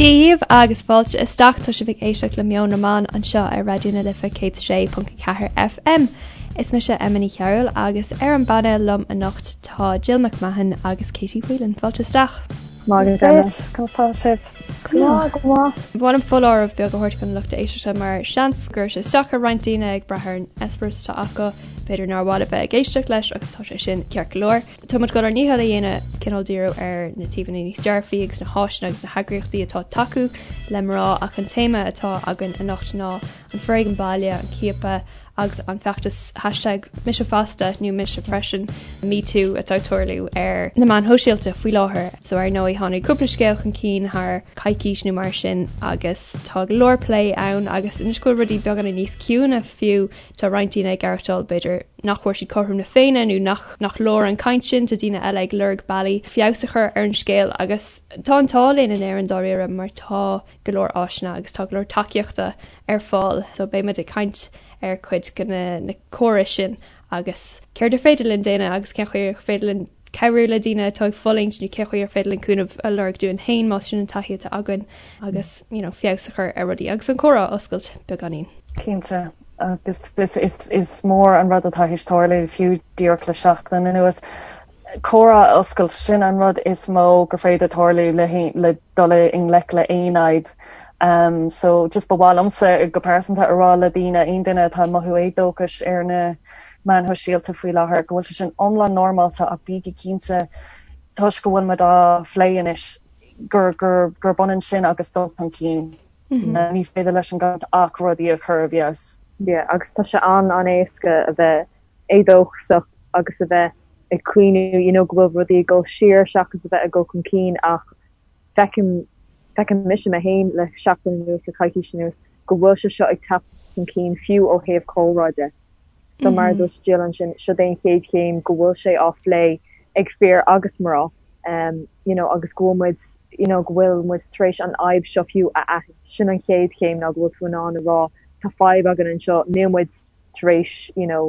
Dia dhaoibh agus fáilte isteach, tá sibh ag éisteacht le Meon na mBan anseo ar Raidió na Life 106.4 FM. Is mise Emma Ní Chearúil agus ar an bpainéal liom anocht tá Jill McMahon agus Katie Whelan. Fáilte isteach. Maith agat Emma. Conas tá sibh? Go maith, go maith. Ba mhaith liom foláireamh beag a thabhairt don lucht éisteachta mar seans go gcuirfidh sé isteach ar roinnt daoine ag brath ar an eispéireas atá acu, b'fhéidir nár mhaith libh bheith ag éisteacht leis agus tá sé sin ceart go leor. Tá muid ag dul ár ndícheall a dhéanamh cineál díriú ar na taobhanna níos dearfaí agus na háiseanna agus na heagraíochtaí atá ag tacú le mná ach an téama atá againn anocht ná an foréigean baile, an ciapadh agus an feachtas hashtag MiseFosta nó Mise Freisin, MeToo atá ag tarlú ar na meáin shóisialta faoi láthair. So ar ndóigh tháinig cúpla scéal chun cinn thar coicís nó mar sin agus tá go leor plé ann agus anois go bhfuil rudaí beagáinín níos ciúine fiú Tá roinnt daoine ag aireachtáil, b'fhéidir, nach bhfuair siad cothrom na Féinne nó nach nach leor an chaint sin. Tá daoine eile ag lorg bealaí feabhas a chur ar an scéal agus tá an t-ádh linn in Éirinn dáiríre mar tá go leor áiseanna agus tá go leor tacaíochta ar fáil. So beidh muid ag caint ar chuid de na na córais sin agus céard ar féidir linn déanamh agus cén chaoi ar féidir linn cabhrú le daoine atá ag fulaingt nó cén chaoi ar féidir linn cúnamh a lorg dúinn féin más sin an taithí atá againn agus you know feabhas a chur ar rudaí agus an comhrá a oscailt beagáinín. Cinnte, agus is is mór an rud atá théis tarlú fiú díreach le seachtain anuas. Comhrá a oscailt, sin an rud is mó gur féidir tarlú le le dul i ngleic le aon fhadhb. Um, so just ba mhaith liomsa go pearsanta a rá le daoine, aon duine atá ag mothú éadóchais ar na meáin shóisialta faoi láthair, go bhfuil sé sin iomlán normálta ach bígí cinnte, toisc go bhfuil muid á phlé anois, gur, gur, gurb ionann sin agus dul chun cinn. Ní féidir leis an gcaint ach rudaí a chur i bhfeabhas. Yeah, agus tá sé an-an-éasca a bheith éadóchasach agus a bheith ag caoineadh, you know, go bhfuil rudaí ag dul siar seachas a bheith ag dul chun cinn ach feicim, feicim mise mé féin le seachtain anuas, le coicís anuas, go bhfuil sé seo ag teacht chun cinn fiú ó thaobh comhrá de. So mar a dúirt Jill ansin, seo é an chéad chéim go bhfuil sé á phlé ag fir agus mná, you know, agus go bhfuil muid, you know, go bhfuil muid tar éis an fhadhb seo fiú a aithint. Sin an chéad chéim ná go bhfuil tú in ann a rá tá fadhb againn anseo, níl muid tar éis, you know,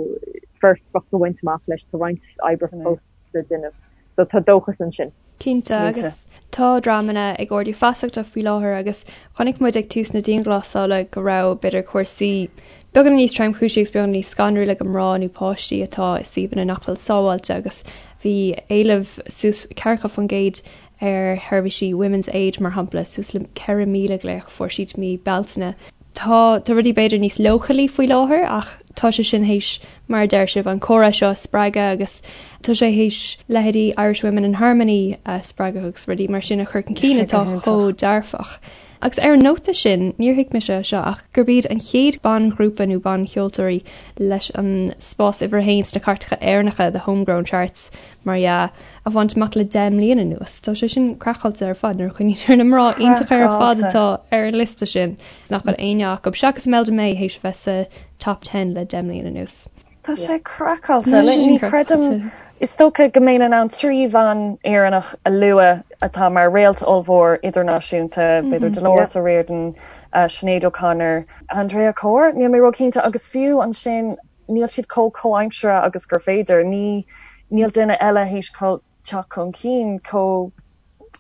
foirfeacht a bhaint amach leis, tá roinnt oibre fós le déanamh. So tá dóchas ansin. Cinnte, agus tá dreamanna ag ardú feasachta faoi láthair agus chonaic muid ag tús na dianghlasála go raibh, b'fhéidir, cúrsaí beagán níos tromchúisí agus beagán níos scanrúla do mná nó páistí atá i suíomhanna nach bhfuil sábháilte agus bhí éileamh suas 40% ar sheirbhísí Women's Aid, mar shampla, suas le 4,000 glaoch a fuair siad mí Bealtaine. Tá tá rudaí b'fhéidir níos leochailí faoi láthair ach tá sé sin théis, mar a deir sibh, an comhrá seo a spreagadh agus tá sé théis leithéidí Irish Women in Harmony a spreagadh agus rudaí mar sin a chur chun cinn atá chomh dearfach. Agus ar an nóta sin, níor thuig mise seo ach gurb iad an chéad banghrúpa nó bancheoltóirí leis an spás uimhir a haon sna cairteacha Éireannacha, the homegrown charts, mar dhea, a bhaint amach le 10 mbliana anuas. Tá sé sin craiceáilte ar fad nuair a chuimhnítear ar na mná iontacha ar fad atá ar an liosta sin, nach bhfuil éinne acu, seachas Imelda May, théis a bheith sa Top Ten le 10 mbliana anuas. Tá sé craiceáilte. Ní chreidim, is dócha go mbeinn in ann 3 bhean Éireannach a lua atá mar réalt ollmhór idirnáisiúnta, b'fhéidir Dolores O'Riordan, Sinéad O'Connor, Andrea Corr, níl mé róchinnte, agus fiú ansin, níl siad chomh comhaimseartha agus gur féidir. Ní, níl duine eile théis teacht chun cinn chomh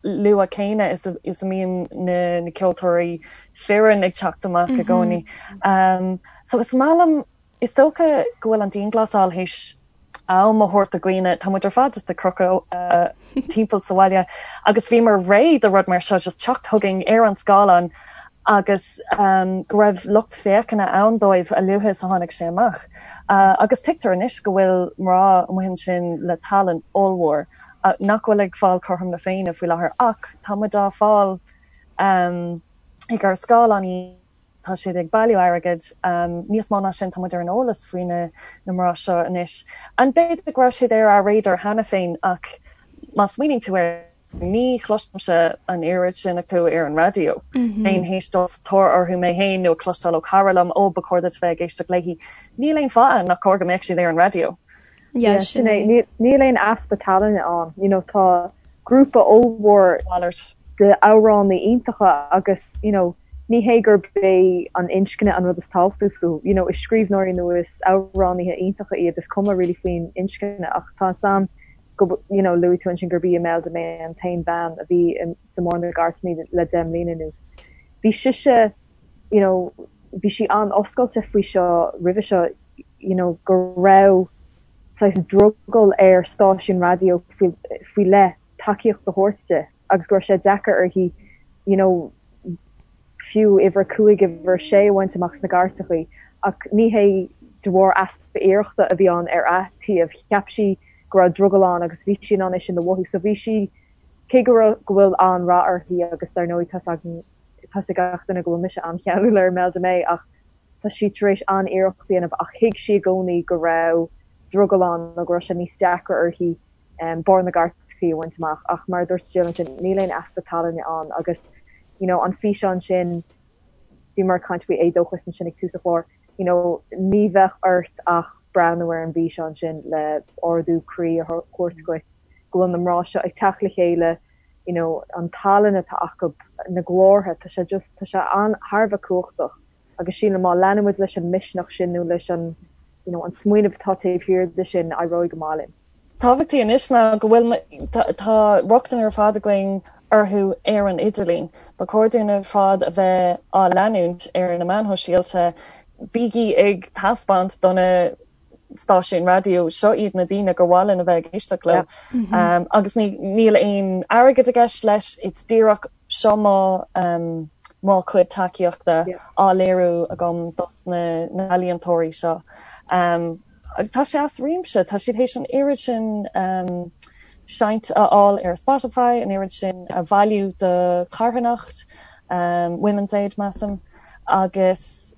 luath céanna is a, is a mbíonn na, na ceoltóirí fireann ag teacht amach i gcónaí. Um, so is maith liom, is dócha go bhfuil an dianghlasáil théis am a thabhairt do dhaoine, tá muid ar fad just ag crochadh uh, timpeall sa bhaile agus bhíomar réidh do rud mar seo just teacht chugainn ar an scáileán agus go raibh lucht féachana ann dóibh a luaithe is a tháinig sé amach. Agus tuigtear anois go bhfuil mná amuigh ansin le tallann ollmhór nach bhfuil ag fáil cothrom na Féinne faoi láthair ach tá muid á fáil ag ár scáileáin, tá siad ag bailiú airgid, níos mó ná sin tá muid ar an eolas faoi na mná seo anois. And b'fhéidir go raibh siad ar ár radar cheana féin ach má smaoiníonn tú air, Ní chloisimse an oiread sin acu ar an raidió. Bheinn théis dul sa tóir orthu mé féin nó ag cloisteáil ó chara liom, 'Ó, ba chóir duit bheith ag éisteacht léi. Níl aon fáth nach cóir go mbeadh siad ar an raidió. Yeah, sin é. Níl aon easpa tallainne ann. You know, tá grúpa ollmhór de amhránaí iontacha agus, you know, ní hé gurb é an inscne an rud is tábhachtaí fúthu. You know, is scríbhneoirí nó is amhránaithe iontacha iad, is cuma really faoin inscne ach tá 'fhios a'm go, you know, luaigh tú ansin gurb í Imelda May an t-aon bhean a bhí sa mbarr na gcairteanna le 10 mbliana anuas. Bhí sise, you know, bhí sí an-oscailte faoi seo roimhe seo, you know, go raibh saghas drogall ar stáisiún raidió faoi leith tacaíocht a thabhairt di agus go raibh sé deacair uirthi, you know, fiú uimhir a 5, uimhir a 6 a bhaint amach sna cairteachaí. Ach ní hé de bharr easpa iarrachta a bhí ann ar a taobh. Cheap sí go raibh drogall ann agus bhí sí in ann é sin a mhothú. So bhí sí, cé go raibh, go bhfuil an-rath uirthi agus dar ndóigh tá's againn, tá's ag gach duine go bhfuil mise an-cheanúil ar Imelda May ach tá sí tar éis an-iarracht a dhéanamh ach thuig sí i gcónaí go raibh drogall ann nó go raibh sé níos deacra uirthi barr na gcairteachaí a bhaint amach ach mar a dúirt Jill ansin níl aon easpa tallainne ann agus you know an físeán sin bhíomar ag caint faoi éadóchas ansin ag tús an chláir you know ní bheadh ort ach breathnú ar an bhfíseán sin le ardú croí a thabhairt dhuit go bhfuil na mná seo ag teacht le chéile you know an tallann atá acu, na glórtha, tá sé just, tá sé an, thar a bheith cumhachtach agus sílim má leanann muid leis an misneach sin nó leis an, you know, an smaoineamh atá taobh thiar de sin, éireoidh go maith linn. Tábhachtaí anois ná go bhfuil, tá rochtain ar fad againn orthu ar an idirlíon. Ba chóir dúinn ar fad a bheith á leanúint ar na meáin shóisialta. Bígí ag taispeáint do na stáisiúin raidió, seo iad na daoine gur mhaith linn a bheith ag éisteacht leo. Agus níl aon airgead i gceist leis, it's díreach seo mo mo chuid tacaíochta á léiriú agam dos na n-ealaíontóirí seo. Tá sé as réimse, tá siad théis an oiread sin seinnt a fháil ar Spotify, an oiread sin a bhailiú do charthanacht, Women's Aid measaim. agus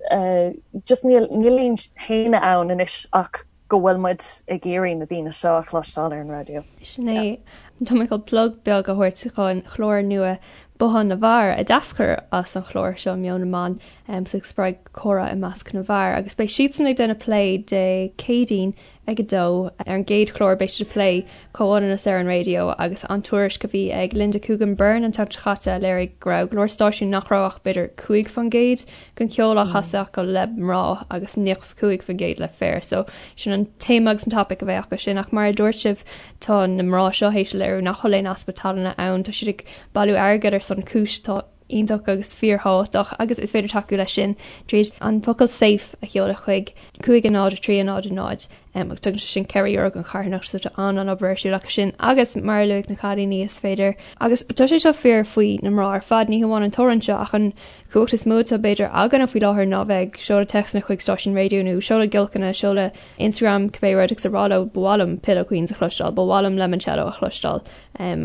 just níl níl aon shéanadh ann anois ach go bhfuil muid ag iarraidh na daoine seo a chloisteáil ar an raidió. Sin é. Tá mé chun plug beag a thabhairt don chlár nua Bothán na bhFear a d'eascair as an chlár seo Meon na mBan so ag spreagadh comhrá i measc na bhfear agus beidh siadsan ag déanamh plé Dé Céadaoin ag 2. Ar an gcéad chlár beidh siad ag plé comhionannas ar an raidió agus an tuairisc a bhí ag Linda Coogan Byrne an tseachtain seo caite a léirigh go raibh go leor stáisiún nach raibh ach b'fhéidir 5% den cheol á chasadh acu le mná agus 95% le fir. So sin an téama agus an topaic a bheidh acu sin ach mar a dúirt sibh tá na mná seo théis a léiriú nach bhfuil aon easpa tallainne ann. Tá siad ag bailiú airgid ar son cúis atá iontach agus fíorthábhachtach agus is féidir tacú leis sin tríd an focal 'safe' a sheoladh chuig 5 0 3 0 0 agus tugann sé sin €4 don charthanacht so tá an-an-obair ar siúl acu sin agus mar a luaigh na cailíní is féidir agus tá sé seo fíor faoi na mná ar fad ní hamháin an t-amhrán seo ach an chumhacht is mó atá b'fhéidir againne faoi láthair ná bheith ag seoladh téacsanna chuig stáisiún raidió nó seoladh giolcanna seoladh Instagram cibé rud agus a rá leo ba mhaith liom Pillow Queens a chloisteáil ba mhaith liom Lemoncello a chloisteáil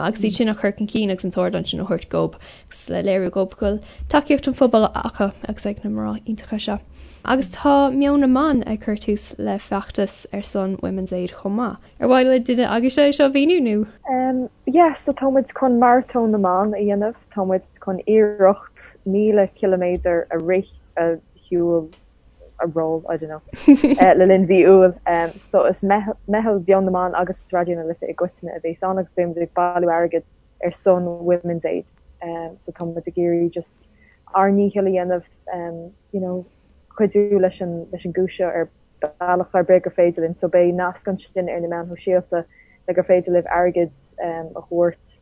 agus iad sin a chur chun cinn agus an t-ardán sin a thabhairt dóibh agus le léiriú dóibh go bhfuil tacaíocht an phobail acu agus ag na mná iontacha seo. Agus tá Meon na mBan ag cur tús le feachtas ar son Women's Aid chomh maith. Ar mhaith le duine agaibhse é seo a mhíniú nó? Yeah, so tá muid chun Maratón na mBan a dhéanamh, tá muid chun iarracht 1,000 ciliméadar a rith, a shiúl, a roll, I don't know, le linn mhí Iúil. So is meitheal Mheon na mBan agus Raidió na Life i gcoitinne a bhéas ann agus beidh muid ag bailiú airgid ar son Women's Aid. So tá muid ag iarraidh just ár ndícheall a dhéanamh, you know, cuidiú leis an leis an gcúis seo ar bealach ar bith gur féidir linn. So beidh nasc ansin ar na meáin shóisialta le gur féidir libh airgead a thabhairt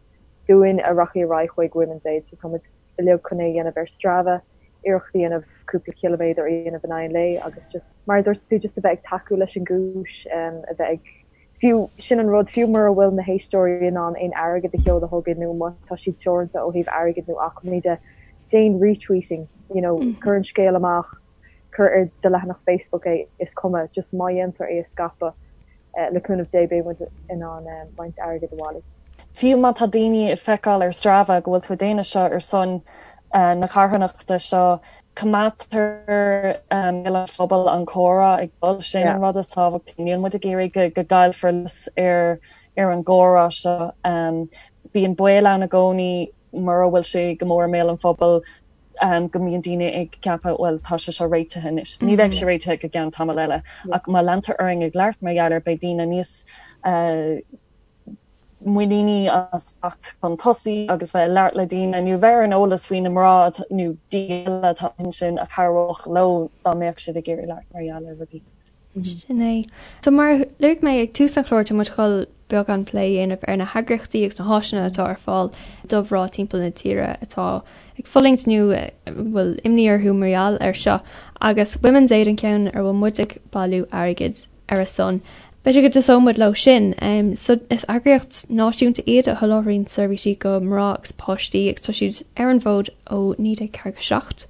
dúinn a rachaidh ar aghaidh chuig Women's Aid. So tá muid uilig chun é a dhéanamh ar Strava, iarracht a dhéanamh cúpla ciliméadar a dhéanamh in aghaidh an lae agus just, mar a dúirt tú, just a bheith ag tacú leis an gcúis, a bheith ag, fiú, sin an rud, fiú mura bhfuil na héisteoirí in ann aon airgead a sheoladh chugainn nó má tá siad teoranta ó thaobh airgid nó acmhainní de, déan retweeting, you know, cuir an scéal amach, cuir ar do leathanach Facebook é, is cuma, just má dhéantar é a scaipeadh, le cúnamh Dé beidh muid in ann roinnt airgid a bhailiú. Fiú má tá daoine ag feiceáil ar Strava go bhfuil tú ag déanamh seo ar son na carthanachta seo, coimeádtar i mbéal an phobail an comhrá ag dul, sin an rud is tábhachtaí. Níl muid ag iarraidh go gcaillfear luas ar ar an gcomhrá seo. Bíonn baol ann i gcónaí mura bhfuil sé go mór i mbéal an phobail go mbíonn daoine ag ceapadh, bhuel, tá sé seo réitithe anois. Ní bheidh sé réitithe go gceann tamall eile. Ach má leantar orainn ag labhairt mar gheall air, beidh daoine níos muiníní as teacht chun tosaigh agus bheith ag labhairt le daoine nó bheith ar an eolas faoi na mná nó daoine eile atá ansin a chabhródh leo dá mbeadh siad ag iarraidh labhairt mar gheall ar rudaí. Sin é. So mar a luaigh mé ag tús an chláir, tá muid ag dul. beagán plé a dhéanamh ar na heagraíochtaí agus na háiseanna atá ar fáil do mhná timpeall na tíre atá ag fulaingt nó a bhfuil imní orthu mar gheall air seo agus Women's Aid an ceann ar bhfuil muid ag bailiú airgid ar a son. B'fhéidir go dtosóidh muid leo sin. So is eagraíocht náisiúnta iad a sholáthraíonn seirbhísí do mhná agus páistí agus tá siad ar an bhfód ó 1947.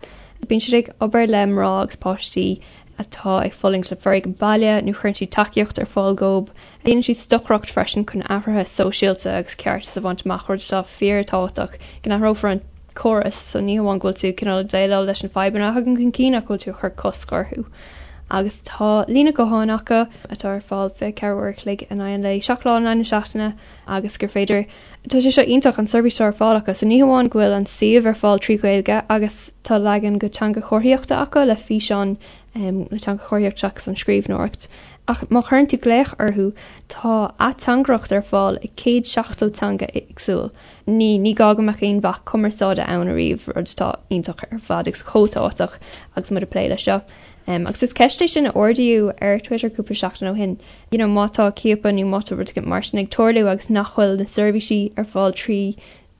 Bíonn siad ag obair le mná agus páistí atá ag fulaingt le foréigean baile nó cuireann siad tacaíocht ar fáil dóibh. Déanann siad stocaireacht freisin chun athruithe sóisialta agus ceartas a bhaint amach, rud atá fíorthábhachtach go n-athrófar an córas so ní hamháin go bhfuil tú cineál ag déileáil leis na fadhbanna a thagann chun cinn ach go bhfuil tú ag cur cosc orthu. Agus tá líne gutháin acu atá ar fáil 24 uair a chloig in aghaidh an lae, 7 lá in aghaidh na seachtaine agus gur féidir Tá sé seo iontach, an seirbhís atá ar fáil acu. So ní hamháin go bhfuil an suíomh ar fáil trí Ghaeilge agus tá leagan go teanga chomharthaíochta acu le físeán le teanga chomharthaíochta seachas an scríbhneoireacht, ach má chuireann tú glaoch orthu tá ateangaireacht ar fáil i 170 teanga éagsúil. Ní ní gá go mbeadh aon bhac cumarsáide ann ariamh, rud atá iontach ar fad agus chomh tábhachtach agus muid ag plé leis seo. Agus is ceist é sin a ardaíodh ar Twitter cúpla seachtain ó shin, you know má tá ciapadh nó má tá rud éigin mar sin ag tarlú agus nach bhfuil na seirbhísí ar fáil trí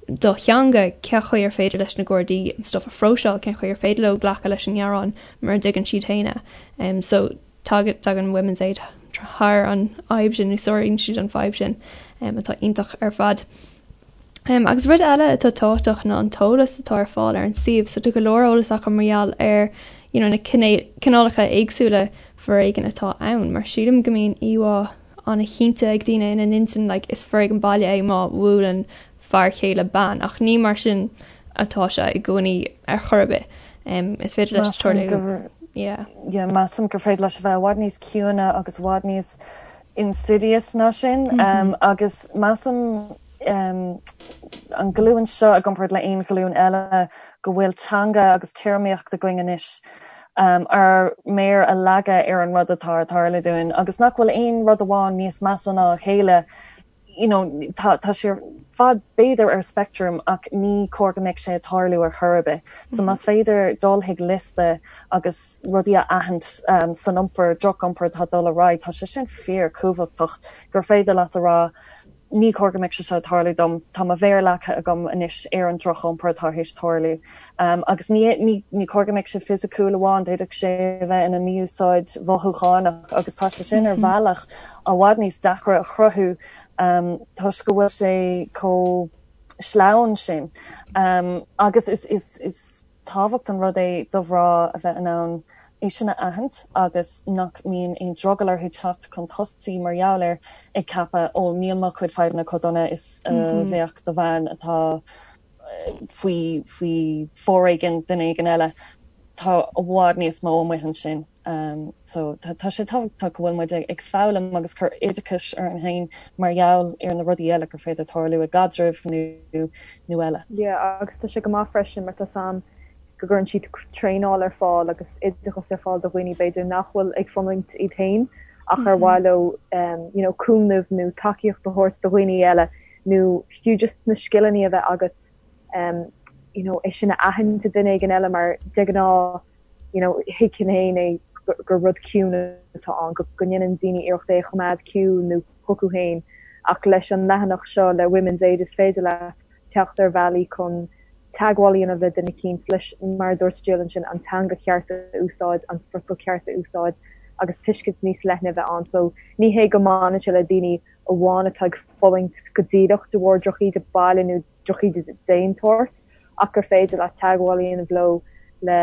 do theanga, cén chaoi ar féidir leis na Gardaí an stuff a phróiseáil, cén chaoi ar féidir leo glacadh leis an ngearán mura dtuigeann siad féin é. So tagann Women's Aid thar an fhadhb sin nó sáraíonn siad an fadhb sin atá iontach ar fad. Agus rud eile atá tábhachtach ná an t-eolas atá ar fáil ar an suíomh. So tá go leor eolas acu mar gheall ar you know na cineálacha éagsúla foréigin atá ann. Mar sílim go mbíonn íomhá an-chinnte ag daoine ina n-intinn like is foréigean baile é má bhuaileann fear céile bean ach ní mar sin atá sé i gcónaí ar chor ar bith. Is féidir leis tarlú. Yeah. Yeah, measaim gur féidir leis a bheith i bhfad níos ciúine agus i bhfad níos insidious ná sin agus measaim an ghlúin seo i gcomparáid le aon ghlúin eile go bhfuil teanga agus téarmaíocht againn anois ár méar a leagadh ar an rud atá ag tarlú dúinn agus nach bhfuil aon rud amháin níos measa ná a chéile you know tá tá sé ar fad b'fhéidir ar speictream ach ní cóir go mbeadh sé ag tarlú ar chor ar bith. So más féidir dul chuig liosta agus rudaí a aithint san iompar, droch-iompar atá ag dul ar aghaidh, tá sé sin fíor-chumhachtach gur féidir leat a rá ní cóir go mbeadh sé seo ag tarlú dom, tá mo mhéar leagtha agam anois ar an droch-iompar atá théis tarlú. Agus ní ní cóir go mbeadh sé fisiciúil amháin, d'fhéadfadh sé a bheith ina mí-úsáid mhothúchánach agus tá sé sin ar bhealach i bhfad níos deacra a chruthú toisc go bhfuil sé chomh sleamhain sin. Agus is is is. tábhacht an rud é do mhná a bheith in ann é sin a aithint agus nach mbíonn aon drogall orthu teacht chun tosaigh mar gheall air ag ceapadh 'ó níl mo chuid fadhbanna chomh dona is a bheadh do bhean atá faoi faoi foréigean duine éigin eile'. Tá i bhfad níos mó amuigh ansin. So tá sé tábhachtach go bhfuil muid ag foghlaim agus cur oideachais orainn féin mar gheall ar na rudaí eile gur féidir tarlú i gcaidrimh nó nó eile. Yeah agus tá sé go maith freisin mar tá 's a'm go gcuireann siad traenáil ar fáil agus oideachas ar fáil do dhaoine b'fhéidir nach bhfuil ag fulaingt iad féin ach ar mhaith leo you know cúnamh nó tacaíocht a thabhairt do dhaoine eile nó fiú just na scileanna a bheith agat you know é sin a aithint i duine éigin eile mar de ghnáth you know, thuigfinn féin é gur rud ciúin atá ann, go ndéanann daoine iarracht é a choimeád ciúin nó chucu féin ach leis an leathanach seo le Women's Aid is féidir leat teacht ar bhealaí chun teagmháil a dhéanamh le duine eicínt leis, mar a dúirt Jill ansin, an teanga cheart a úsáid, an friotal ceart a úsáid agus tuiscint níos leithne a bheith ann. So ní hé go mbaineann sé le daoine amháin atá ag fulaingt go díreach de bharr drochíde baile nó drochíde d'aon tsórt ach gur féidir leat teagmháil a dhéanamh leo le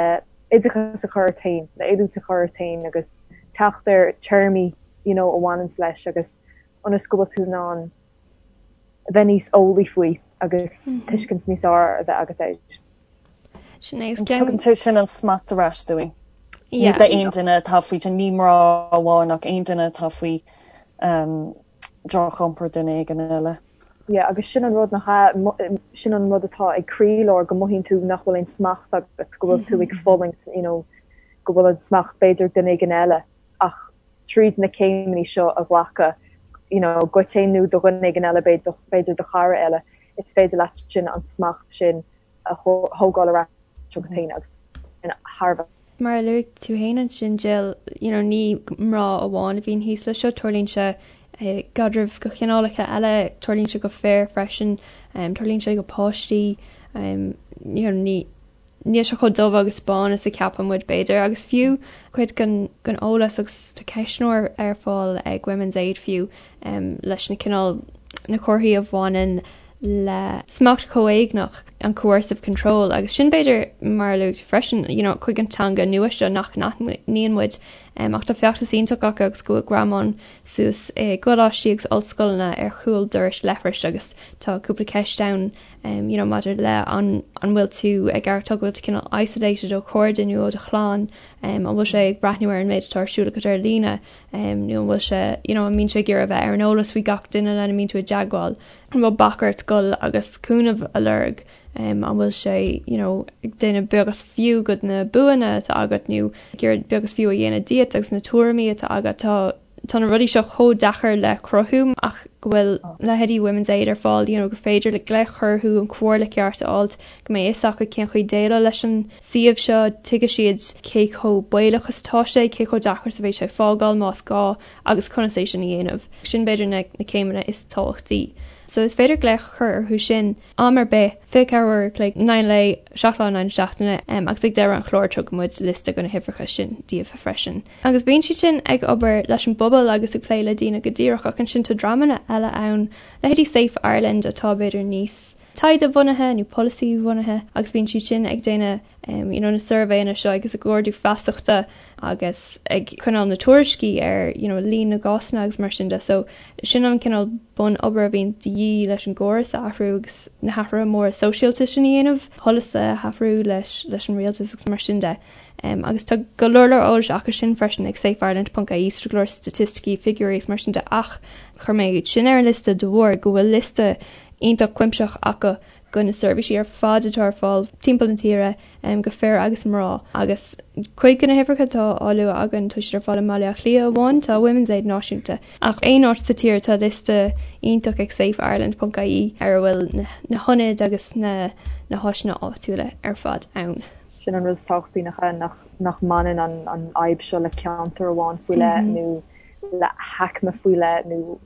oideachas a chur ort féin, le oiliúint a chur ort féin agus teacht ar téarmaí you know a bhaineanns leis agus ionas go bhfuil tú in ann a bheith níos eolaí faoi agus tuiscint níos fearr a bheith agat air. Sin é. Tugann sé sin an smacht ar ais dúinn. Ní d'aon duine atá faoi, ní mná amháin ach aon duine atá faoi droch-iompar duine éigin eile. Yeah agus sin an rud nach ea, sin an rud atá ag croílár go mothaíonn tú nach bhfuil aon smacht agat, go bhfuil tú ag fulaingt, you know, go bhfuil an smacht b'fhéidir ag duine éigin eile ach tríd na céimeanna seo a ghlacadh, you know, duit féin nó do dhuine éigin eile, b'fhéidir do chara eile, is féidir leat sin an smacht sin a thógáil ar ais chugat féin agus sin thar a bheith. Mar a luaigh tú féin ansin Jill, you know, ní mná amháin a bhíonn thíos leis seo, tarlaíonn sé. I gcaidrimh de chineálacha eile, tarlaíonn sé go fir freisin, tarlaíonn sé go páistí, you know, ní níl sé chomh dubh agus bán is a ceapann muid b'fhéidir agus fiú cuid den den eolas agus tá ceistneoir ar fáil ag Women's Aid fiú leis na cineál na comharthaí a bhaineann le smacht comhéigneach, an coercive control, agus sin b'fhéidir mar a luaigh tú freisin, you know, chuig an teanga nua seo nach n-aithníonn muid. Ach tá feachtas iontach acu agus go bhfuil greamáin suas i gcoláistí agus ollscoileanna ar chúl dorais leithris agus tá cúpla ceist ann you know, maidir le an an bhfuil tú ag aireachtáil go bhfuil tú cineál isolated ó chairde nó ó do chlann, an bhfuil sé ag breathnú ar an méid atá ar siúl agat ar líne nó an bhfuil sé, you know, an mbíonn sé ag iarraidh a bheith ar an eolas faoi gach duine lena mbíonn tú i dteagmháil. An bhfuil bac ort dul agus cúnamh a lorg? An bhfuil sé you know ag déanamh beag is fiú de na buanna atá agat nó ag iarraidh beag is fiú a dhéanamh díot agus na tuairimí atá agat? Tá tá na rudaí seo chomh deacair le cruthú ach go bhfuil leithéidí Women's Aid ar fáil you know gur féidir le glaoch a chur orthu an comhairle ceart a fháilt, go mbeidh fhios acu cén chaoi déileáil leis an suíomh seo, tuigfidh siad cé chomh baolach is atá sé, cé chomh deacair is a bheidh sé fágáil más gá. agus conas é sin a dhéanamh. Sin b'fhéidir na céimeanna is tábhachtaí. So is féidir glaoch a chur orthu sin am ar bith, 24 uair a chloig, in aghaidh an lae, 7 lá in aghaidh na seachtaine, agus ag deireadh an chláir tugann muid liosta de na huimhreacha sin daoibh freisin. Agus bíonn siad sin ag obair leis an bpobal agus ag plé le daoine go díreach ach ansin tá dreamanna eile ann, leithéidí Safe Ireland atá b'fhéidir níos taighde-bhunaithe nó polasaí-bhunaithe agus bíonn siad sin ag déanamh you know na suirbhéanna seo agus ag ardú feasachta agus ag coinneáil na tuairiscí ar you know líon na gcásanna agus mar sin de. So sin an cineál bun-obair a bhíonn de dhíth leis an gcóras a athrú agus na hathruithe móra sóisialta sin a dhéanamh, polasaithe a athrú leis leis an rialtas agus mar sin de. Um, agus tá go leor leor eolais acu sin freisin ag safeireland.ie, so go leor staitisticí, figiúirí agus mar sin de ach chuir mé iad sin ar an liosta de bharr go bhfuil liosta iontach cuimsitheach acu go na seirbhísí ar fad atá ar fáil timpeall na tíre go fir agus mná agus cuid de na huimhreacha atá á lua againn tá siad ar fáil i mBaile Átha Cliath amháin, tá Women's Aid náisiúnta ach aon áit sa tír tá liosta iontach ag safeireland.ie ar a bhfuil na hionaid agus na na háiseanna áitiúla ar fad ann. Sin an rud is tábhachtaí nach ea, nach nach mbaineann an an fhadhb seo le ceantar amháin faoi leith nó le haicme faoi leith nó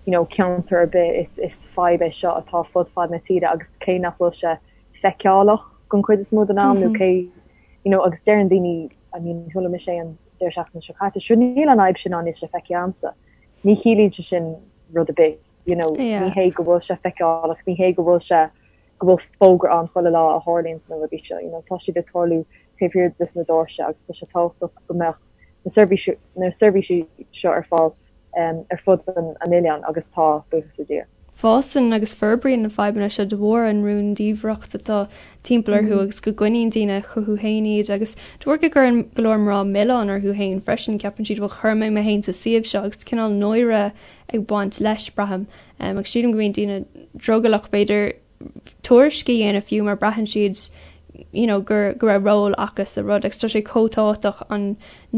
you know ceantar ar bith, is is fadhb é seo atá fud fad na tíre agus cé nach bhfuil sé feiceálach don chuid is mó den am nó cé you know agus deireann daoine I mean chuala mise é an deireadh seachtaine seo caite sure níl an fhadhb sin ann níl sé feicthe agamsa. Ní chiallaíonn sé sin rud ar bith you know ní hé go bhfuil sé feiceálach ní hé go bhfuil sé go bhfuil fógra ann chuile lá a tharlaíonn na rudaí seo you know tá siad ag tarlú taobh thiar des na doirse agus tá sé tábhachtach go mbeadh na seirbhísí na seirbhísí seo ar fáil um, ar fud an, an oileáin agus tá buíochas le Dia. Fásann agus forbraíonn na fadhbanna seo de bharr an rúndiamhracht atá timpeall orthu agus go gcoinníonn daoine chucu féin iad agus de bharr go gcuireann go leor mná milleán orthu féin freisin, ceapann siad bhuel chuir mé mé féin sa suíomh seo agus cineál náire ag baint leis, braithim. Agus sílim go mbíonn daoine drogallach b'fhéidir tuairisc a dhéanamh fiú mar braitheann siad you know gur go raibh ról acu sa rud agus tá sé chomh tábhachtach an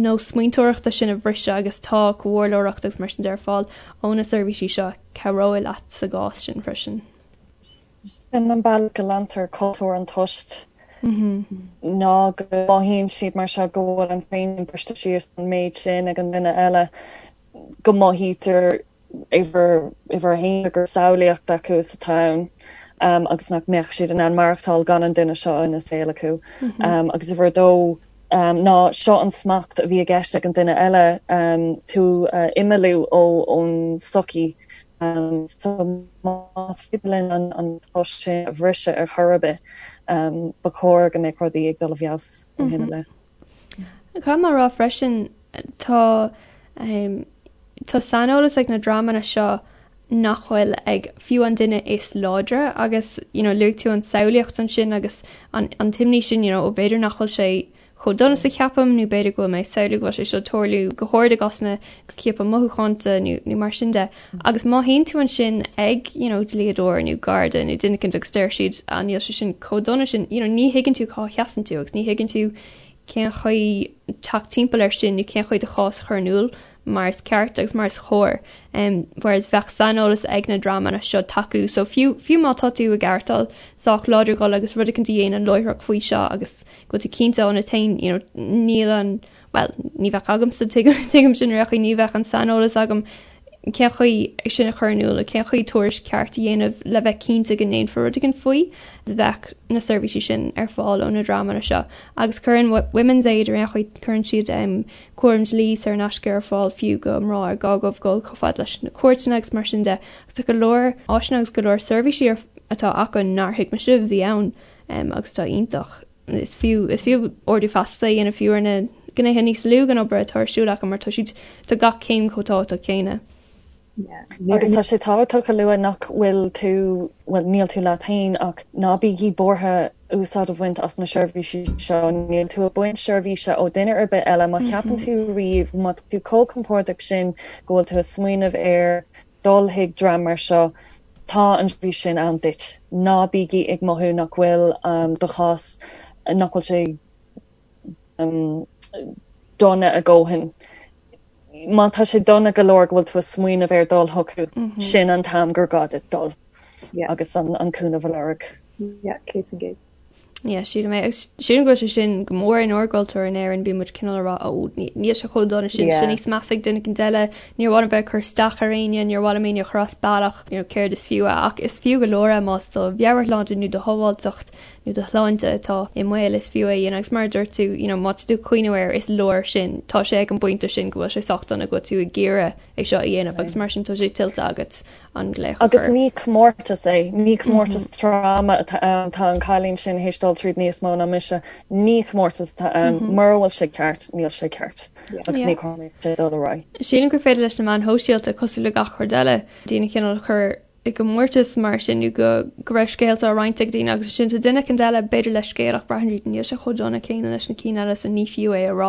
nós smaointeoireachta sin a bhriseadh agus tá comhairleoireacht agus mar sin de ar fáil ó na seirbhísí seo a chabhróidh leat sa gcás sin freisin. Sin an bealach go leantar cultúr an toist ná go mothaíonn siad mar seo go bhfuil an féin briste síos an méid sin ag an duine eile go mothaítear uimhir a haon gur samhlaíocht acu is atá ann agus nach mbeadh siad in ann maireachtáil gan an duine seo ina saol acu. Agus uimhir a dó ná seo an smacht a bhí i gceist ag an duine eile tú a imeallú ón sochaí. So más féidir linn an tost sin a bhriseadh ar chor ar bith, ba chóir go mbeadh rudaí ag dul i bhfeabhas ó shin i leith. Caithfidh mé a rá freisin, tá tá saineolas ag na dreamanna seo nach bhfuil ag fiú an duine is láidre agus you know luaigh tú an tsamhlaíocht ansin agus an an t-imní sin you know ó b'fhéidir nach bhfuil sé chomh dona is a cheapaim nó b'fhéidir go bhfuil mé ag samhlú go bhfuil sé seo ag tarlú go hard i gcásanna go ciapadh mothúchánta nó nó mar sin de. Agus má théann tú ansin ag you know dlíodóir nó garda nó duine éicint agus deir siad ah níl sé sin chomh dona sin you know ní thuigeann tú cá sheasann tú agus ní thuigeann tú cén chaoi teacht timpeall air sin nó cén chaoi do chás a chur in iúl mar is ceart agus mar is chóir. Um, whereas bheadh saineolas ag na dreamanna seo tacú so fiú fiú má tá tú ag aireachtáil sách láidir dhul agus rud éicint a dhéanamh láithreach faoi seo agus go bhfuil tú cinnte ionat féin you know, níl an bhuel, ní bheadh agamsa, tuigim sin ar aon chaoi, ní bheadh an saineolas agam. cén chaoi é sin a chur in iúl nó cén chaoi tuairisc ceart a dhéanamh le bheith cinnte go ndéanfar rud éigin faoi. Bheadh na seirbhísí sin ar fáil ó na dreamanna seo agus cuireann Women's Aid ar aon chaoi, cuireann siad cúram dlí saor in aisce ar fáil fiú do mná ar gá dóibh dul chomh fada leis na cúirteanna agus mar sin de agus tá go leor áiseanna agus go leor seirbhísí atá acu nár thuig mise a bhí ann agus atá iontach. Is fiú is fiú ardú feasachta a dhéanamh fiú ar na gnéithe níos lú den obair atá ar siúl acu mar tá siad tá gach céim chomh tábhachtach céanna. Agus tá sé tábhachtach a lua nach bhfuil tú, bhuel níl tú leat féin ach ná bígí buartha úsáid a bhaint as na seirbhísí seo, níl tú ag baint seirbhíse ó duine ar bith eile. Má cheapann tú riamh, má tá tú chomh compordach sin go bhfuil tú ag smaoineamh ar dul chuig dream mar seo, tá an tseirbhís sin ann duit. Ná bígí ag mothú nach bhfuil do chás, nach bhfuil sé dona a dhóthain. Má tá sé dona go leor go bhfuil tú ag smaoineamh ar dul chucu, sin an t-am gur gá duit dul agus an cúnamh a lorg. Yeah, 100%. Yeah, sílim é. Agus sílim go bhfuil sé sin go mór inár gcultúr in Éirinn, bíonn muid cineál ag rá, ó, níl sé chomh dona sin, tá sé níos measa ag duine éicint eile, níor mhaith liom bheith ag cur isteach ar éinne, níor mhaith liom éinne a chur as bealach, you know, céard is fiú é. Ach is fiú go leor é más do mheabhairshláinte nó do shábháilteacht nó do shláinte atá i mbaol, is fiú é a dhéanamh. Agus mar a dúirt tú, you know, má tá tú ag cuimhneamh air, is leor sin. Tá sé ag an bpointe sin go bhfuil sé sách dona go bhfuil tú ag iarraidh é seo a dhéanamh agus mar sin tá sé tuillte agat. an glaoch a Agus chur. ní comórtas é, ní comórtas tráma atá ann, tá an cailín sin théis dul tríd níos mó ná mise, ní comórtas atá ann, mura bhfuil sé ceart, níl sé ceart agus ní chóir sé dul ar aghaidh. Sílim gur féidir leis na meáin shóisialta, cosúil le gach rud eile, daoine cineál a chur i gcomórtas mar sin nó go go raibh scéalta á roinnt ag daoine agus ansin tá duine éicint eile b'fhéidir le scéal ach braitheann siad níl sé chomh dona céanna leis na cinn eile so ní fiú é a rá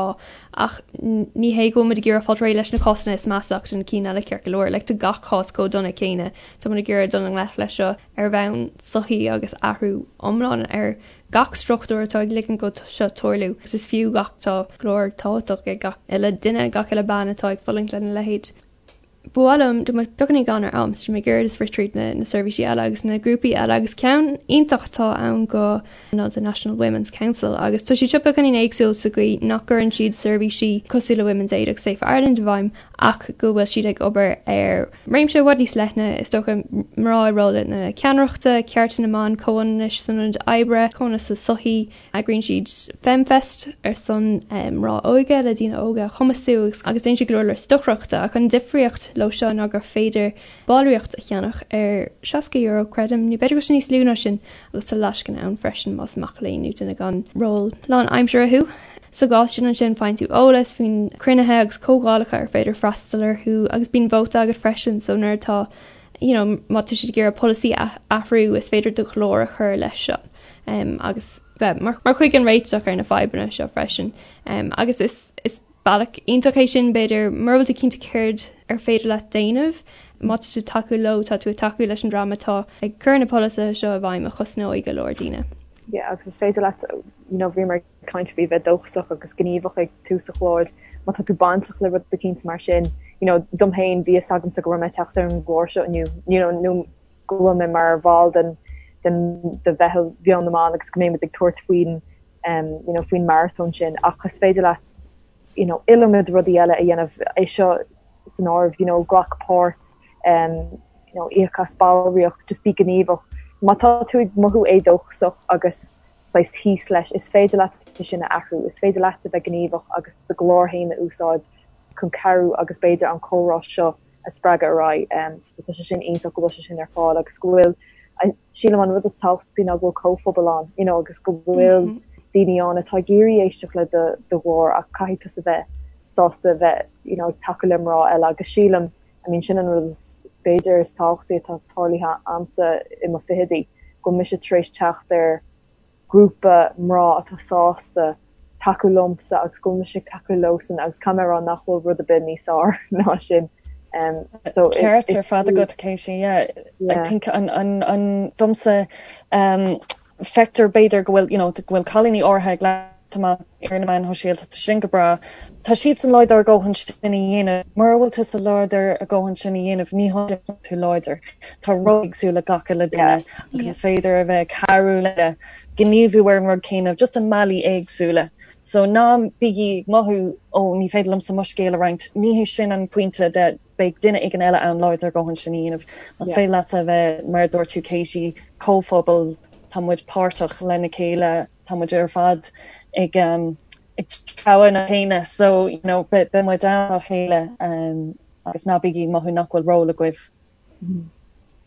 Ach ní hé go bhfuil muid ag iarraidh fáil réidh leis na cásanna is measa ach tá na cinn eile ceart go leor. Like tá gach cás chomh dona céanna. Tá muid ag iarraidh dul i ngleic leis seo ar bhonn sochaí agus athrú iomlán ar gach struchtúr atá ag ligean go seo tarlú. Agus is fiú gach tá glór tábhachtach ag gach uile duine, gach uile bean atá ag fulaingt lena leithéid. Ba mhaith liom, tá muid beagáinín gann ar am, so tá mé ag iarraidh just rith tríd na na seirbhísí eile agus na grúpaí eile agus ceann iontach atá ann go ná the National Women's Council agus tá siad seo beagáinín éagsúil sa gcaoi nach gcuireann siad seirbhísí cosúil le Women's Aid agus Safe Ireland i bhfeidhm ach go bhfuil siad ag obair ar réimse i bhfad níos leithne, is dócha, mná i rólanna ceannaireachta, cearta na mban, comhionannais san ionad oibre, comhionannas sa tsochaí. Eagraíonn siad FemFest ar son mná óga le daoine óga a chumasú agus déanann siad go leor leor stocaireachta ach an difríocht leo seo ná gur féidir ballraíocht a cheannach ar €60 creidim, nó b'fhéidir go bhfuil sé níos lú ná sin agus tá lascaine ann freisin más mac léinn nó duine gan ról lánaimseartha thú. Sa gcás sin ansin faigheann tú eolas faoin cruinnithe agus comhdhálacha ar féidir freastal orthu agus bíonn vóta agat freisin so nuair atá you know má tá siad ag iarraidh polasaí a athrú is féidir do ghlór a chur leis seo. agus bheith mar chuid den réiteach ar na fadhbanna seo freisin. Agus is is bealach iontach é sin b'fhéidir mura bhfuil tú cinnte céard ar féidir leat déanamh, má tá tú ag tacú leo, tá tú ag tacú leis an dream atá ag cur na polasaithe seo i bhfeidhm a chosnóidh go leor daoine. Yeah, agus is féidir leat, you know, bhíomar ag caint faoi bheith dóchasach agus gníomhach ag tús an chláir, má tá tú bainteach le rud eicínt mar sin, you know, dom féin bhí fhios agamsa go raibh mé ag teacht ar an gclár seo inniu, you know, nó go bhfuil mé mar bhall den den de mheitheal Mheon na mBan agus go mbeidh muid ag tabhairt faoin um you know faoin marathon sin ach is féidir leat you know iliomad rudaí eile a dhéanamh é seo san áireamh you know glac páirt um you know íoc as ballraíocht just bí gníomhach má tá tú ag mothú éadóchasach agus saghas thíos leis is féidir leat é sin a athrú is féidir leat a bheith gníomhach agus do ghlór féin a úsáid chun cabhrú agus b'fhéidir an comhrá seo a spreagadh ar aghaidh. So tá sé sin iontach go bhfuil sé sin ar fáil agus go bhfuil, sílim an rud is tábhachtaí ná go bhfuil comhphobal ann, you know, agus go bhfuil daoine ann atá ag iarraidh éisteacht le do do ghlór ach caithfidh tusa bheith sásta bheith, you know, ag tacú le mná eile agus sílim, I mean, sin an rud is b'fhéidir is tábhachtaí atá tarlaithe a'msa i mo fichidí, go bhfuil mise tar éis teacht ar grúpa mná atá sásta tacú liomsa agus go bhfuil mise ag tacú leosan agus caithfidh mé a rá nach bhfuil rud ar bith níos fearr ná sin. So Ceart ar fad agat Katie, yeah. I think an an an domsa um feictear b'fhéidir go bhfuil you know go bhfuil cailíní áirithe ag. amach ar na meáin shóisialta, tá sin go breá. Tá siadsan láidir a dhóthain sin a dhéanamh. Mura bhfuil tusa láidir a dhóthain sin a dhéanamh, ní hionann is tú láidir. Tá ról éagsúil ag gach uile duine agus is féidir a bheith ag cabhrú le gníomhú ar an rud céanna just i mbealaí éagsúla. So ná bígí ag mothú ó ní féidir liomsa mo scéal a roinnt. Ní hé sin an pointe de beidh duine éigin eile ann láidir a dhóthain sin a dhéanamh. Más féidir leat a bheith, mar a dúirt tú Katie, comhphobal, tá muid páirteach lena chéile, tá muid ar fad ag ag treabhadh na céanna so you know beidh muid ann dá chéile agus ná bígí ag mothú nach bhfuil ról agaibh.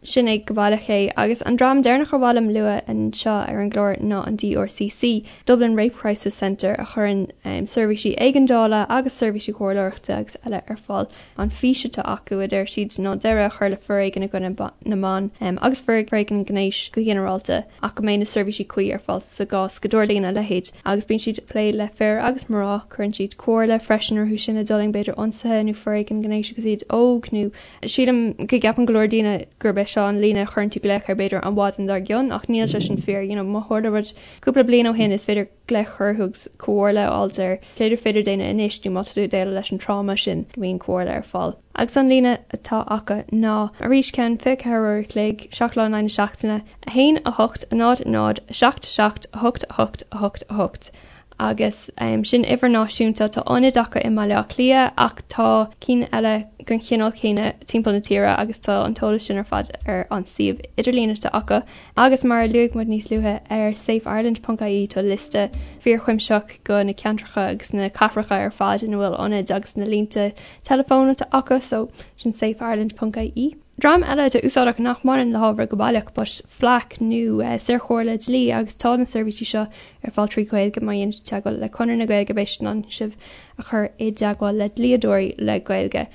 Sin é go baileach é. Agus an dream deireanach ar mhaith liom lua anseo ar an gclár ná an DRCC, Dublin Rape Crisis Centre, a chuireann seirbhísí éigeandála agus seirbhísí comhairleoireachta agus eile ar fáil. An fhís atá acu, a deir siad, ná deireadh a chur le foréigean i gcoinne na mban agus foréigean gnéis go ginearálta ach go mbeidh na seirbhísí cuí ar fáil sa gcás go dtarlaíonn a leithéid. Agus bíonn siad ag plé le fir agus mná, cuireann siad comhairle freisin orthu sin a d'fhulaing b'fhéidir ionsaithe nó foréigean gnéis agus iad óg nó sílim go gceapann go leor daoine gurb é seo an líne a chuireann tú glaoch air b'fhéidir an mhaidin dár gcionn ach níl sé sin fíor. You know má tharla rud cúpla bliain ó shin is féidir glaoch orthu agus comhairle a fháilt ar céard ar féidir déanamh anois nó má tá tú ag déileáil leis an tráma sin go mbíonn comhairle ar fáil. Agus an líne atá acu ná, arís ceann 24 uair a chloig, 7 lá in aghaidh na seachtaine, 1 8 0 0 7 7 8 8 8 8 agus sin uimhir náisiúnta. Tá ionaid acu i mBaile Átha Cliath ach tá cinn eile den chineál céanna timpeall na tíre agus tá an t-eolas sin ar fad ar an suíomh idirlín atá acu. Agus mar a luaigh muid níos luaithe, ar safeireland ponc ie tá liosta fíorchuimsitheach de na ceantracha agus na cathracha ar fad ina bhfuil ionaid agus na línte teileafóin atá acu, so sin safeireland ponc ie. Dream eile atá úsáideach nach mbaineann le hábhar go baileach but FLAC nó saorchomhairle dlí agus tá na seirbhísí seo ar fáil trí Ghaeilge má dhéanann tú teagmháil le Conradh na Gaeilge beidh siad in ann sibh a chur i dteagmháil le dlíodóirí le Gaeilge.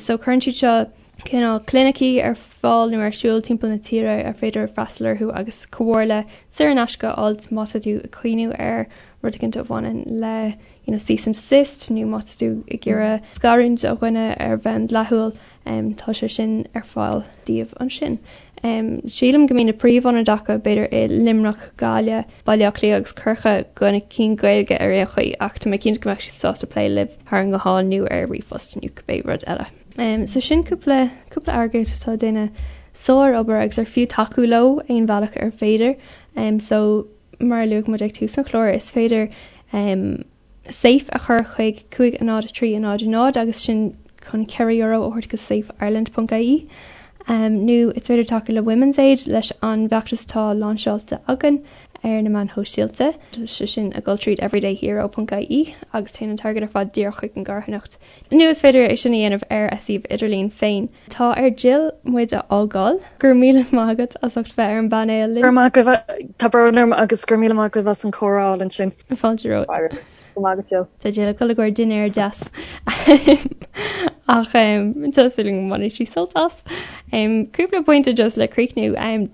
So cuireann siad seo cineál clinicí ar fáil nó ar siúl timpeall na tíre ar féidir freastal orthu agus comhairle saor in aisce a fháilt má tá tú ag cuimhniú ar rud éicint a bhaineann le you know cease and desist nó má tá tú ag iarraidh scarúint ó dhuine ar bhonn dleathúil tá sé sin ar fáil daoibh ansin. Sílim go mbíonn na príomhionaid acu b'fhéidir i Luimneach, Gaillimh, Baile Átha Cliath agus Corcaigh do na cinn Gaeilge ar aon chaoi ach tá mé cinnte go mbeadh siad sásta plé libh thar an nguthán nó ar ríomhphost nó cibé rud eile. So sin cúpla, cúpla eagraíocht atá ag déanamh sár-obair agus ar fiú tacú leo aon bhealach ar féidir. So mar a luaigh muid ag tús an chláir, is féidir safe a chur chuig 5 0 3 0 0 agus sin chun €4 a thabhairt go safeireland ponc ie. Nó is féidir tacú le Women's Aid leis an bhfeachtas atá láinseáilte againn ar na meáin shóisialta. Tá sé sin ag dul tríd everydayhero ponc ie agus téann an t-airgead ar fad díreach chuig an gcarthanacht. Nó is féidir é sin a dhéanamh ar a suíomh idirlín féin. Tá ar Jill muid a fhágáil. Go raibh míle maith agat as ucht bheith ar an bpainéal linn. Go raibh maith agaibh. Tá brón orm agus go raibh míle maith agaibh as an chomhrá álainn sin. Fáilte romhat. Go raibh maith agat Jill. Tá Jill ag dul i gcomhair dinnéar deas ach tá súil agam go mbainfidh sí sult as. Cúpla pointe just le críochnú.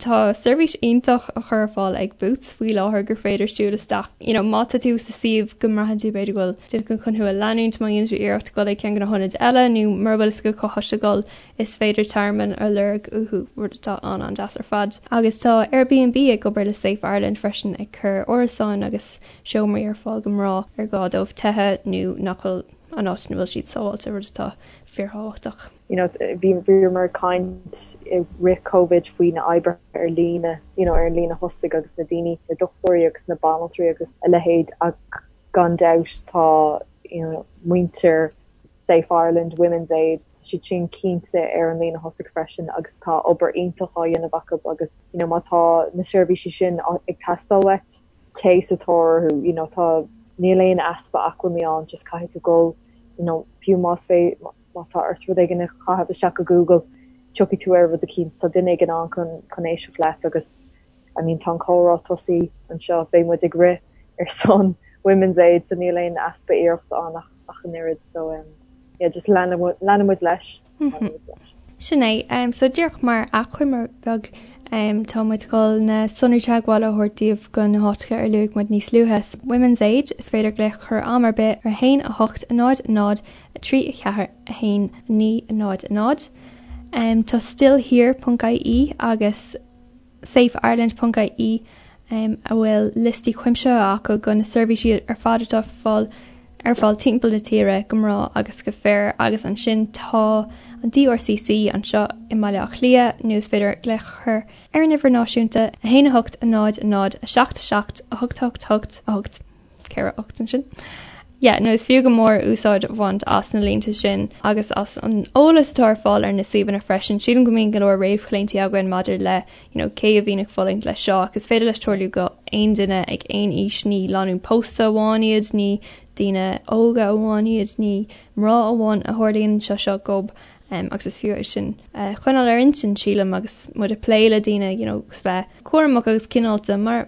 Tá seirbhís iontach á chur ar fáil ag Boots faoi láthair gur féidir siúl isteach you know má tá tú sa suíomh go mbraitheann tú b'fhéidir go bhfuil duine éigin chun thú a leanúint má dhéanann tú iarracht dul ag ceann de na hionaid eile nó mura bhfuil fhios agat cá háit le dul is féidir tearmann a lorg uathu, rud atá an-an-deas ar fad. Agus tá Airbnb ag obair le Safe Ireland freisin ag cur árasáin agus seomraí ar fáil do mhná ar gá dóibh teitheadh nó nach bhfuil an áit ina bhfuil siad sábháilte, rud atá fíorthábhachtach. You know, bhí bhíomar ag caint i rith Covid faoi na oibrithe ar líne, you know, ar an líne thosaigh agus na daoine, na dochtúirí agus na banaltraí agus a leithéid ach gan dabht tá, you know, muintir Safe Ireland, Women's Aid, tá siad sin cinnte ar an líne thosaigh freisin agus tá obair iontach á dhéanamh acu agus, you know, má tá na seirbhísí sin ag teastáil uait, téigh sa tóir orthu, you know, tá, níl aon easpa acmhainní ann, just caithfidh tú dul, you know, fiú más fé, má tá ort rud éigin a chaitheamh isteach go Google, tiocfaidh tú ar rud eicínt, tá duine éigin ann chun, chun éisteacht leat agus, I mean, tá an comhrá tosaithe anseo, beidh muid ag rith ar son Women's Aid so níl aon easpa iarrachta ann ach, ach an oiread, so um, yeah, just leanfaidh muid leis. Sin é. So díreach mar achoimre bheag, tá muid ag dul na sonraí teagmhála a thabhairt daoibh do na háiteacha ar luaigh muid níos luaithe. Women's Aid, is féidir glaoch a chur am ar bith ar 1 8 0 0 3 4 1 9 0 0. Tá stillhere ponc ie agus safeireland ponc ie. a bhfuil liostaí cuimsitheacha acu de na seirbhísí ar fad atá fáil ar fáil timpeall na tíre go mná agus go fir agus ansin tá an DRCC anseo i mBaile Átha Cliath nó is féidir glaoch a chur ar an uimhir náisiúnta 1 8 0 0 7 7 8 8 8 8 4 8 ansin. Yeah, nó is fiú go mór úsáid a bhaint as na línte sin agus as an eolas atá ar fáil ar na suíomhanna freisin. Sílim go mbíonn go leor réamhchlaontaí againn maidir le you know, cé a bhíonn ag fulaingt leis seo ach is féidir leis tarlú go aon duine ag aon aois, ní lánúin pósta amháin iad, ní daoine óga amháin iad, ní mná amháin a tharlaíonn seo seo dóibh um, agus is fiú é sin a choinneáil ar intinn sílim agus muid ag plé le daoine you know, agus bheith cúramach agus cineálta mar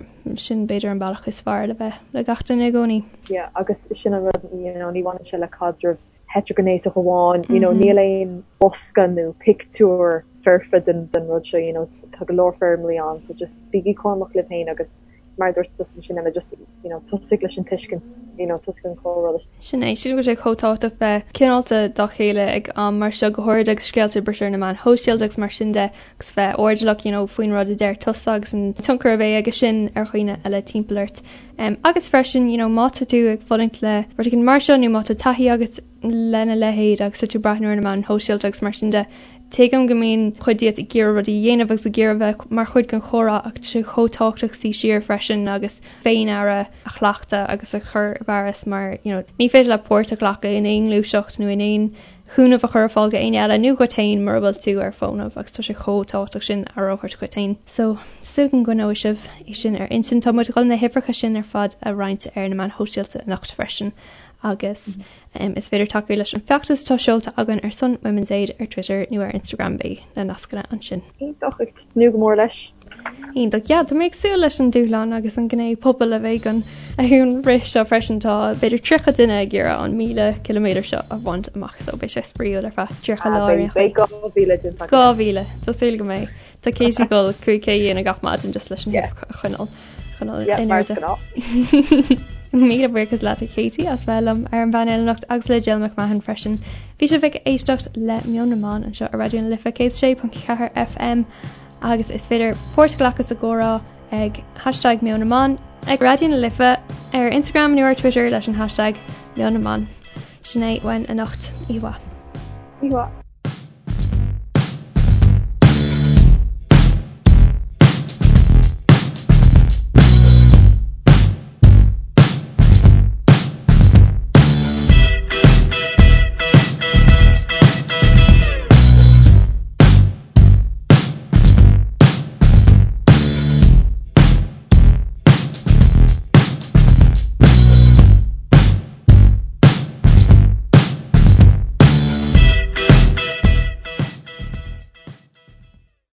sin b'fhéidir an bealach is fearr le bheith le gach duine i gcónaí. Yeah, agus sin an rud you know, ní bhaineann sé le caidreamh heitrighnéasach amháin, you know, níl aon bosca nó pictiúr foirfe den, den rud seo, you know, tá go leor foirmlí ann, so just bígí cúramach libh féin agus mar a dúirt tusa ansin Emma, just, you know, tosaigh leis an tuiscint, you know, tosaigh an comhrá leis. Sin é, sílim go bhfuil sé chomh tábhachtach bheith cineálta dá chéile ag am mar seo, go háirid agus scéalta ag briseadh ar na meáin shóisialta agus mar sin de, agus bheith airdeallach, you know, faoin rud a deir tusa agus an tionchar a bheidh aige sin ar dhaoine eile timpeall ort. Um, agus freisin, you know, má tá tú ag fulaingt le rud éigin mar seo nó má tá taithí agat lena leithéid agus tá tú ag breathnú ar na meáin shóisialta agus mar sin de, tuigim go mbíonn cuid díot ag iarraidh rudaí a dhéanamh agus ag iarraidh bheith mar chuid den chomhrá ach tá sé chomh tábhachtach suí siar freisin agus féin-aire a chleachtadh agus a chur i bhfearas mar you know, ní féidir leat páirt a ghlacadh in aon ghluaiseacht nó in aon chúnamh a chur ar fáil go éinne eile nó dhuit féin mura bhfuil tú ar fónamh agus tá sé chomh tábhachtach sin aire a thabhairt dhuit féin. So, súil agam go gcoinneoidh sibh é sin ar intinn. Tá muid ag dul na huimhreacha sin ar fad a roinnt ar na meáin shóisialta anocht freisin agus is féidir tacú leis an feachtas atá seolta againn ar son Women's Aid ar Twitter nó ar Instagram beidh na nascanna ansin. Iontach, ag tnúth go mór leis. Iontach, yeah, tá mé ag súil leis an dúshlán agus an gné pobail a bheidh an an rith seo freisin. Tá b'fhéidir 30 duine ag iarraidh an 1000 ciliméadar seo a bhaint amach so beidh sé spraíúil ar feadh 30 lá ar aon chaoi. Beidh 2000 déanta againn. 2000, tá súil go mbeidh. Tá Katie ag dul 5K a dhéanamh gach maidin just leis an uimhir a choinneáil choinneáil in airde. Míle buíochas leat a Katie as bheith liom ar an bpainéal anocht agus le Jill McMahon freisin. Bhí sibh ag éisteacht le Meon na mBan anseo ar Raidió na Life 106.4 FM agus is féidir páirt a ghlacadh sa gcomhrá ag hashtag Meon na mBan ag Raidió na Life ar Instagram nó ar Twitter leis an hashtag Meon na mBan. Sin é uainn anocht. Oíche mhaith. Oíche mhaith.